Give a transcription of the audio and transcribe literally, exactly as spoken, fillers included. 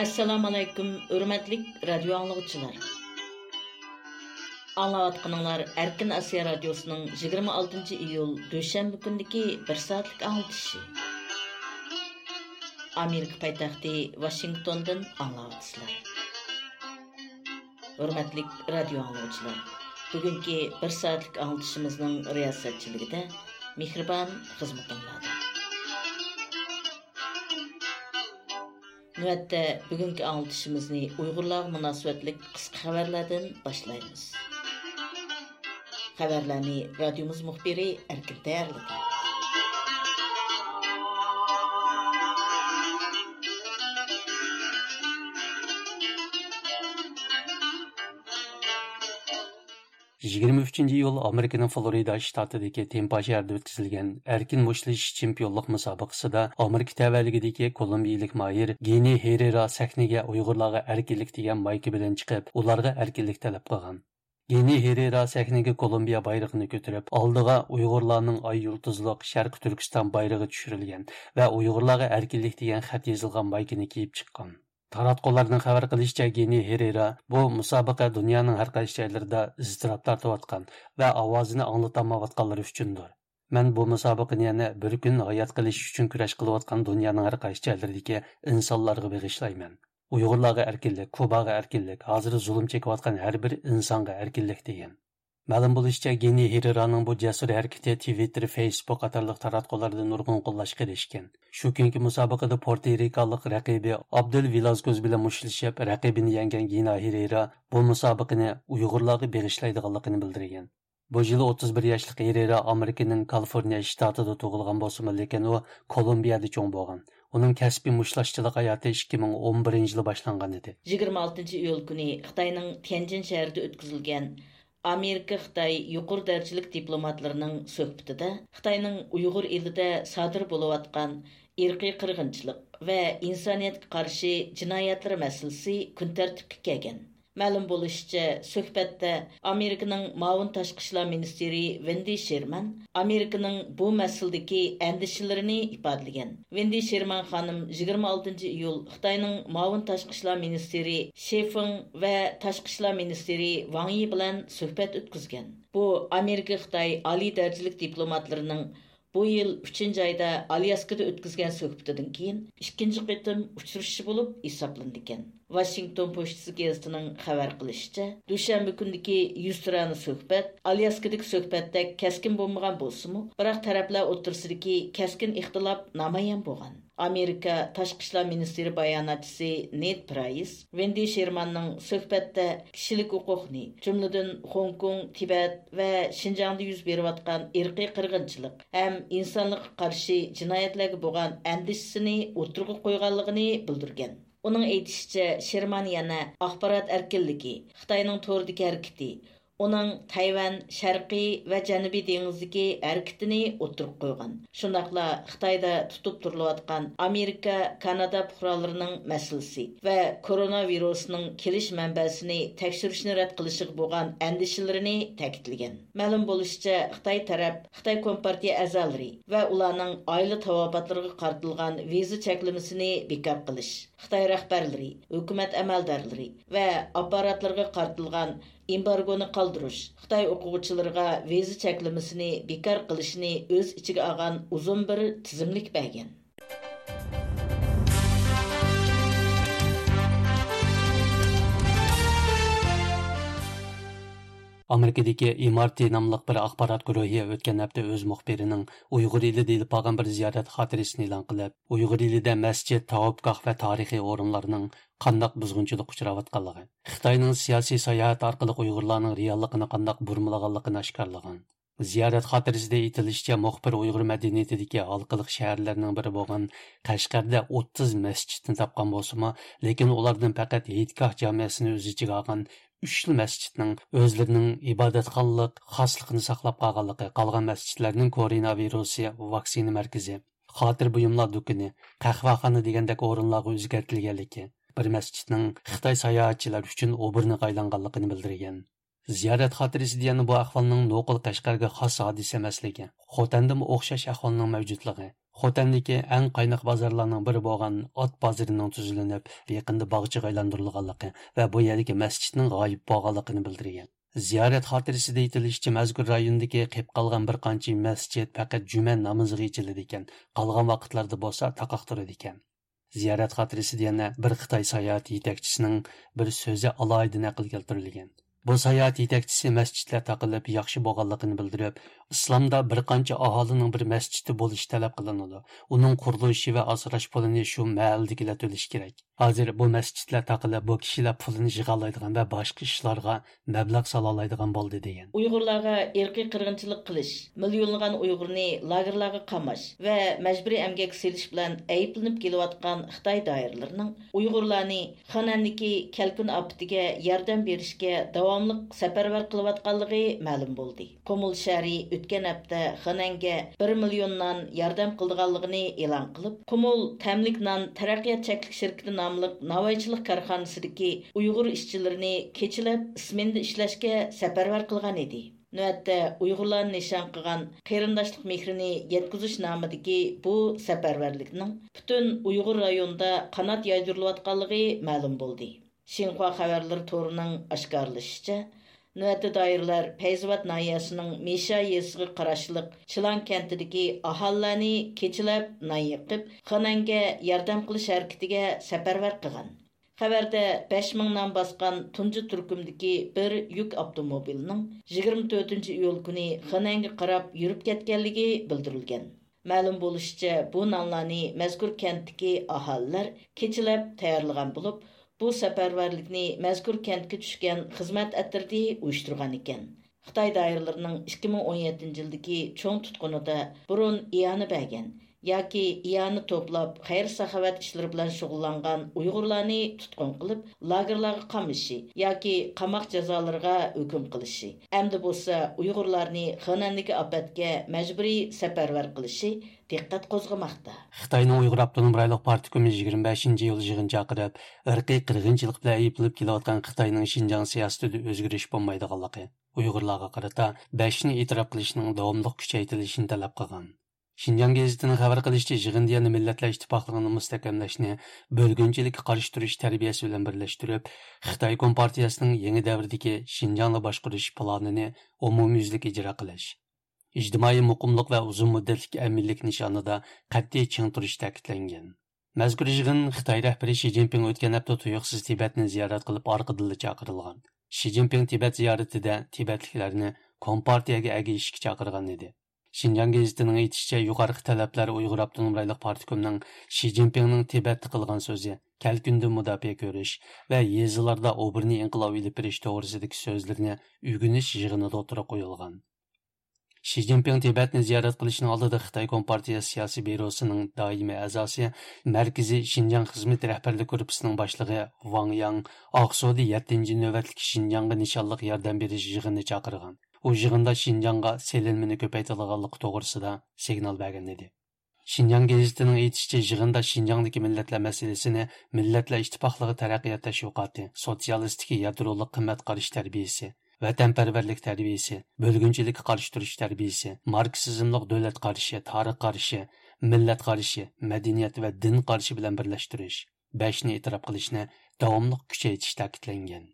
ئەسسالامۇئەلەيكۇم، ھۆرمەتلىك رادىيو ئاڭلىغۇچىلار. ئاڭلاۋاتقىنىڭلار ئەركىن ئاسىيا رادىيوسىنىڭ يىگىرمە ئالتىنچى ئىيۇل دۈشەنبە كۈنىدىكى بىر سائەتلىك ئاڭلىتىشى. ئامېرىكا پايتەختى ۋاشىنگتوندىن ئاڭلاۋاتىسىلەر. ھۆرمەتلىك رادىيو ئاڭلىغۇچىلار، بۈگۈنكى بىر سائەتلىك ئاڭلىتىشىمىزنىڭ رىياسەتچىلىكىدە مېھرىبان خىزمىتىڭلاردا. نۆۋەتتە بۈگۈنكى ئاڭلىتىشىمىزنى ئۇيغۇرلارغا مۇناسىۋەتلىك قىسقا خەۋەرلەردىن باشلايمىز. خەۋەرلەرنى رادىيومىز مۇخبىرى ئەركىن تەييارلىدى. يىگىرمە ئۈچىنچى ئىيۇل ئامېرىكىنىڭ فلورىدا شتاتىدىكى تېمپا شەھىرىدە ئۆتكۈزۈلگەن ئەركىن مۇشتلىشىش چېمپىيونلۇق مۇسابىقىسىدا ئامېرىكا تەۋەلىكىدىكى كولومبىيىلىك ماھىر گېنى ھېرېرا سەھنىگە ئۇيغۇرلارغا ئەركىنلىك دېگەن مايكا بىلەن چىقىپ، ئۇلارغا ئەركىنلىك تەلەپ قىلغان. گېنى ھېرېرا سەھنىگە كولومبىيە بايرىقىنى كۆتۈرۈپ، ئالدىغا ئۇيغۇرلارنىڭ ئاي يۇلتۇزلۇق شەرقىي تۈركىستان بايرىقى چۈشۈرۈلگەن ۋە ئۇيغۇرلارغا ئەركىنلىك دېگەن خەت يېزىلغان مايكىنى كىيىپ چىققان. تاراتقۇلارنىڭ خەۋەر قىلىشىچە، گېنى ھېرېرا بۇ مۇسابىقە دۇنيانىڭ ھەر قايسى جايلىرىدا ئىزتىراپ تارتىۋاتقان ۋە ئاۋازىنى ئاڭلىتالمايۋاتقانلىرى ئۈچۈندۇر. مەن بۇ مۇسابىقىنى يەنە بىر كۈن ھايات قېلىش ئۈچۈن كۈرەش قىلىۋاتقان دۇنيانىڭ ھەر قايسى جايلىرىدىكى ئىنسانلارغا بېغىشلايمەن. ئۇيغۇرلارغا ئەركىنلىك، كۇباغا ئەركىنلىك، ھازىر زۇلۇم چېكىۋاتقان ھەر بىر ئىنسانغا ئەركىنلىك، دېگەن. مەلۇم بولۇشىچە، گېنى ھېرېرانىڭ بۇ جەسۇر ھەرىكىتى تىۋىتتېر، فېيسبۇك قاتارلىق تاراتقۇلاردا نۇرغۇن قوللاشقا ئېرىشكەن. شۇ كۈنكى مۇسابىقىدە پورتو رىكالىق رەقىبى ئابدېل ۋېلازكوز بىلەن مۇشتلىشىپ، رەقىبىنى يەڭگەن گېنى ھېرېرا بۇ مۇسابىقىنى ئۇيغۇرلارغا بېغىشلايدىغانلىقىنى بىلدۈرگەن. بۇ يىل ئوتتۇز بىر ياشلىق ھېرېرا ئامېرىكىنىڭ كالىفورنىيە شتاتىدا تۇغۇلغان بولسىمۇ، لېكىن ئۇ كولومبىيەدە چوڭ بولغان. ئۇنىڭ كەسپىي مۇشتلاشچىلىق ھاياتى ئىككى مىڭ ئون بىرىنچى يىلى باشلانغان ئىدى. يىگىرمە ئالتىنچى ئىيۇل كۈنى خىتاينىڭ تيەنجىن شەھىرىدە ئۆتكۈزۈلگەن ئامېرىكا خىتاي يۇقىرى دەرىجىلىك دىپلوماتلىرىنىڭ سۆھبىتىدە خىتاينىڭ ئۇيغۇر ئېلىدە سادىر بولۇۋاتقان ئىرقىي قىرغىنچىلىق ۋە ئىنسانىيەتكە قارشى جىنايەتلىرى مەسىلىسى كۈن تەرتىپكە كەلگەن. مەلۇم بولۇشىچە، سۆھبەتتە ئامېرىكىنىڭ مۇئاۋىن تاشقى ئىشلار مىنىستىرى ۋېندى شېرمان ئامېرىكىنىڭ بۇ مەسىلىدىكى ئەندىشىلىرىنى ئىپادىلىگەن. ۋېندى شېرمان خانىم يىگىرمە ئالتىنچى ئىيۇل خىتاينىڭ مۇئاۋىن تاشقى ئىشلار مىنىستىرى شې فېڭ ۋە تاشقى ئىشلار مىنىستىرى ۋاڭ يى بىلەن سۆھبەت ئۆتكۈزگەن. بۇ ئامېرىكا خىتاي ئالىي دەرىجىلىك دىپلوماتلىرىنىڭ بۇ يىل ئۈچىنچى ئايدا ئالياسكىدا ئۆتكۈزگەن سۆھبىتىدىن كېيىن ئىككىنچى قېتىم ئۇچرىشىشى بولۇپ ھېسابلىنىدىكەن. ۋاشىنگتون پوچتىسى گېزىتىنىڭ خەۋەر قىلىشىچە، دۈشەنبە كۈنىدىكى يۈزتۇرانە سۆھبەت ئالياسكىدىكى سۆھبەتتەك كەسكىن بولمىغان بولسىمۇ، بىراق تەرەپلەر ئوتتۇرىسىدىكى كەسكىن ئىختىلاپ نامايان بولغان. ئامېرىكا تاشقى ئىشلار مىنىستىرى باياناتچىسى نېد پرايس ۋېندى شېرماننىڭ سۆھبەتتە كىشىلىك ھوقۇقنى، جۈملىدىن خوڭكوڭ، تىبەت ۋە شىنجاڭدا يۈز بېرىۋاتقان ئىرقىي قىرغىنچىلىق ھەم ئىنسانلىققا قارشى جىنايەتلەرگە بولغان ئەندىشىسىنى ئوتتۇرىغا قويغانلىقىنى بىلدۈرگەن. ئۇنىڭ ئېيتىشىچە، شېرمان يەنە ئاخبارات ئەركىنلىكى، خىتاينىڭ توردىكى ھەرىكىتى، ئۇنىڭ تەيۋەن، شەرقىي ۋە جەنۇبىي دېڭىزدىكى ھەرىكىتىنى ئوتتۇرىغا قويغان. شۇنداقلا خىتايدا تۇتۇپ تۇرۇلۇۋاتقان ئامېرىكا، كانادا پۇقرالىرىنىڭ مەسىلىسى ۋە كورونا ۋىرۇسىنىڭ كېلىش مەنبەسىنى تەكشۈرۈشنى رەت قىلىشىغا بولغان ئەندىشىلىرىنى تەكىتلىگەن. مەلۇم بولۇشىچە، خىتاي تەرەپ خىتاي كومپارتىيە ئەزالىرى ۋە ئۇلارنىڭ ئائىلە تاۋابىئاتلىرىغا قارىتىلغان ۋىزا چەكلىمىسىنى بىكار قىلىش، خىتاي رەھبەرلىرى، ھۆكۈمەت ئەمەلدارلىرى ۋە ئاپپاراتلىرىغا قارىتىلغان ئېمبارگونى قالدۇرۇش، خىتاي ئوقۇغۇچىلىرىغا ۋىزا چەكلىمىسىنى بىكار قىلىشنى ئۆز ئىچىگە ئالغان ئۇزۇن بىر تىزىملىك بەرگەن. ئامېرىكىدىكى ئېم ئار تى ناملىق بىر ئاخبارات گۇرۇھى ئۆتكەن ھەپتە ئۆز مۇخبىرىنىڭ ئۇيغۇر ئېلىدە ئېلىپ بارغان بىر زىيارەت خاتىرىسىنى ئېلان قىلىپ، ئۇيغۇر ئېلىدە مەسچىت، تاۋاپگاھ ۋە تارىخىي ئورۇنلارنىڭ قانداق بۇزغۇنچىلىققا ئۇچراۋاتقانلىقى، خىتاينىڭ سىياسىي ساياھەت ئارقىلىق ئۇيغۇرلارنىڭ رېئاللىقىنى قانداق بۇرمىلىغانلىقىنى ئاشكارىلىغان. زىيارەت خاتىرىسىدە ئېيتىلىشىچە، مۇخبىر ئۇيغۇر مەدەنىيىتىدىكى ھالقىلىق شەھەرلەرنىڭ بىرى بولغان قەشقەردە ئوتتۇز مەسچىتنى تاپقان بولسىمۇ، لېكىن ئۇلاردىن پەقەت ھېيتگاھ جامىئەسىنى ئۆز ئىچىگە ئالغان ئۈچلا مەسچىتنىڭ ئۆزلىرىنىڭ ئىبادەتخانىلىق خاسلىقىنى ساقلاپ قالغانلىقى، قالغان مەسچىتلەرنىڭ كورونا ۋىرۇسى ۋاكسىنا مەركىزى، خاتىرە بۇيۇملار دۇكىنى، قەھۋەخانا دېگەندەك ئورۇنلارغا ئۆزگەرتىلگەنلىكى، بىر مەسچىتنىڭ خىتاي ساياھەتچىلەر ئۈچۈن ئوبورنىغا ئايلانغانلىقىنى بىلدۈرگەن. زىيارەت خاتىرىسىدە يەنە بۇ ئەھۋالنىڭ نوقۇل قەشقەرگە خاس ھادىسە ئەمەسلىكى، خوتەندىمۇ ئوخشاش ئەھۋالنىڭ مەۋجۇتلۇقى، خوتەندىكى ئەڭ قايناق بازارلارنىڭ بىرى بولغان ئات بازىرىنىڭ تۈزلىنىپ، يېقىندا باغچىغا ئايلاندۇرۇلغانلىقى ۋە بۇ يەردىكى مەسچىتنىڭ غايىب بولغانلىقىنى بىلدۈرگەن. زىيارەت خاتىرىسىدە ئېيتىلىشىچە، مەزكۇر رايوندىكى قېلىپ قالغان بىر قانچە مەسچىت پەقەت جۈمە نامىزىغا ئېچىلىدىكەن، قالغان ۋاقىتلاردا بولسا تاقاق تۇرىدىكەن. زىيارەت خاتىرىسىدە يەنە بىر خىتاي ساياھەت يېتەكچىسىنىڭ بىر سۆزى ئالاھىدە نەقىل كەلتۈرۈلگەن. بۇ ساياھەت يېتەكچىسى مەسچىتلەر تاقىلىپ ياخشى بولغانلىقىنى بىلدۈرۈپ، ئىسلامدا بىر قانچە ئاھالىنىڭ بىر مەسچىتى بولۇشى تەلەپ قىلىنىدۇ. ئۇنىڭ قۇرۇلۇشى ۋە ئاسراش پۇلىنى شۇ مەھەللىدىكىلەر تۆلىشى كېرەك. ھازىر بۇ مەسچىتلەر تاقىلىپ، بۇ كىشىلەر پۇلىنى يىغالايدىغان ۋە باشقا ئىشلارغا مەبلەغ سالالايدىغان بولدى، دېگەن. ئۇيغۇرلارغا ئىرقىي قىرغىنچىلىق قىلىش، مىليونلىغان ئۇيغۇرنى لاگېرلارغا قاماش ۋە مەجبۇرىي ئەمگەككە سېلىش بىلەن ئەيىبلىنىپ كېلىۋاتقان خىتاي دائىرىلىرىنىڭ ئۇيغۇرلارنى خېنەندىكى كەلكۈن ئاپىتىگە ياردەم بېرىشكە داۋاملىق سەپەرۋەر قىلىۋاتقانلىقى مەلۇم بولدى. قۇمۇل شەھىرى ئۆتكەن ھەپتە خېنەنگە بىر مىليون نان ياردەم قىلىدىغانلىقىنى ئېلان قىلىپ، قۇمۇل تەملىك نان تەرەققىيات چەكلىك شىركىتى ناملىق ناۋايچىلىق كارخانىسىدىكى ئۇيغۇر ئىشچىلىرىنى كېچىلەپ ئىسمېنىدا ئىشلەشكە سەپەرۋەر قىلغان ئىدى. نۆۋەتتە ئۇيغۇرلارنى نىشان قىلغان قېرىنداشلىق مېھرىنى يەتكۈزۈش نامىدىكى بۇ سەپەرۋەرلىكنىڭ پۈتۈن ئۇيغۇر رايونىدا قانات يايدۇرۇلۇۋاتقانلىقى مەلۇم بولدى. شىنخۇا خەۋەرلىرى تورىنىڭ ئاشكارىلىشىچە، نۆۋەتتە دائىرىلەر پەيزىۋات ناھىيەسىنىڭ مىشا يېزىسىغا قاراشلىق چىلان كەنتىدىكى ئاھالىلەرنى كېچىلەپ نان يېقىپ، خېنەنگە ياردەم قىلىش ھەرىكىتىگە سەپەرۋەر قىلغان. خەۋەردە بەش مىڭ نان باسقان تۇنجى تۈركۈمدىكى بىر يۈك ئاپتوموبىلىنىڭ يىگىرمە تۆتىنچى ئىيۇل كۈنى خېنەنگە قاراپ يۈرۈپ كەتكەنلىكى بىلدۈرۈلگەن. مەلۇم بولۇشىچە، بۇ نانلارنى مەزكۇر كەنتتىكى ئاھالىلەر كېچىلەپ تەييارلىغان بولۇپ، بۇ سەپەرۋەرلىكنى مەزكۇر كەنتكە چۈشكەن خىزمەت ئەترىتى ئۇيۇشتۇرغان ئىكەن. خىتاي دائىرىلىرىنىڭ ئىككى مىڭ ئون يەتتىنچى يىلدىكى چوڭ تۇتقۇنىدا بۇرۇن ئىئانە بەرگەن ياكى ئىئانە توپلاپ، خەير-ساخاۋەت ئىشلىرى بىلەن شۇغۇللانغان ئۇيغۇرلارنى تۇتقۇن قىلىپ، لاگېرلارغا قامىشى ياكى قاماق جازالىرىغا ھۆكۈم قىلىشى، ئەمدى بولسا ئۇيغۇرلارنى خېنەندىكى ئاپەتكە مەجبۇرىي سەپەرۋەر قىلىشى دىققەت قوزغىماقتا. خىتاينىڭ ئۇيغۇر ئاپتونوم رايونلۇق پارتكومى يىگىرمە بەشىنچى ئىيۇل يىغىن چاقىرىپ، ئىرقىي قىرغىنچىلىق بىلەن ئەيىبلىنىپ كېلىۋاتقان خىتاينىڭ شىنجاڭ سىياسىتىدە ئۆزگىرىش بولمايدىغانلىقى، ئۇيغۇرلارغا قارىتا بەشنى ئېتىراپ قىلىشنىڭ داۋاملىق كۈچەيتىلىشىنى تەلەپ قىلغان. شىنجاڭ گېزىتىنىڭ خەۋەر قىلىشىچە، يىغىندا يەنە مىللەتلەر ئىتتىپاقلىقىنى مۇستەھكەملەشنى، بۆلگۈنچىلىككە قارشى تۇرۇش تەربىيەسى بىلەن بىرلەشتۈرۈپ، خىتاي كومپارتىيەسىنىڭ يېڭى دەۋردىكى شىنجاڭنى باشقۇرۇش پىلانىنى ئومۇميۈزلۈك ئىجرا قىلىش، ئىجتىمائىي مۇقىملىق ۋە ئۇزۇن مۇددەتلىك ئەمىنلىك نىشانىدا قەتئىي چىڭ تۇرۇش تەكىتلەنگەن. مەزكۇر يىغىن خىتاي رەھبىرى شى جىنپىڭ ئۆتكەن ھەپتە تۇيۇقسىز تىبەتنى زىيارەت قىلىپ ئارقىدىنلا چاقىرىلغان. شى جىنپىڭ تىبەت زىيارىتىدە تىبەتلىكلەرنى كومپارتىيەگە ئەگىشىشكە چاقىرغان ئىدى. شىنجاڭ گېزىتىنىڭ ئېيتىشىچە، يۇقىرىقى تەلەپلەر ئۇيغۇر ئاپتونوم رايونلۇق پارتكومنىڭ شى جىنپىڭنىڭ تىبەتتە قىلغان سۆزى، كەلكۈندىن مۇداپىئە كۆرۈش ۋە يېزىلاردا ئوبوروتنى ئىنقىلاب ئېلىپ بېرىش توغرىسىدىكى سۆزلىرىنى ئۆگىنىش يىغىنىدا ئوتتۇرىغا قويۇلغان. شى جىنپىڭ تىبەتنى زىيارەت قىلىشنىڭ ئالدىدا خىتاي كومپارتىيە سىياسىي بيۇروسىنىڭ دائىمىي ئەزاسى، مەركىزىي شىنجاڭ خىزمىتى رەھبەرلىك گۇرۇپپىسىنىڭ باشلىقى ۋاڭ ياڭ ئاقسۇدا يەتتىنچى نۆۋەتلىك شىنجاڭغا نىشانلىق ياردەم بېرىش يىغىنى چاقىرغان. ئۇ يىغىندا شىنجاڭغا سېلىنمىنى كۆپەيتىدىغانلىقى توغرىسىدا سىگنال بەرگەن ئىدى. شىنجاڭ گېزىتىنىڭ ئېيتىشىچە، يىغىندا شىنجاڭدىكى مىللەتلەر مەسىلىسىنى مىللەتلەر ئىتتىپاقلىقى تەرەققىيات تەشۋىقاتى، سوتسىيالىستىكى يادرولۇق قىممەت قارىشى تەربىيىسى، ۋەتەنپەرۋەرلىك تەربىيىسى، بۆلگۈنچىلىككە قارشى تۇرۇش تەربىيىسى، ماركسىزملىق دۆلەت قارىشى، تارىخ قارىشى، مىللەت قارىشى، مەدەنىيەت ۋە دىن قارىشى بىلەن بىرلەشتۈرۈش، بەشنى ئېتىراپ قىلىشنى داۋاملىق كۈچەيتىش تەكىتلەنگەن.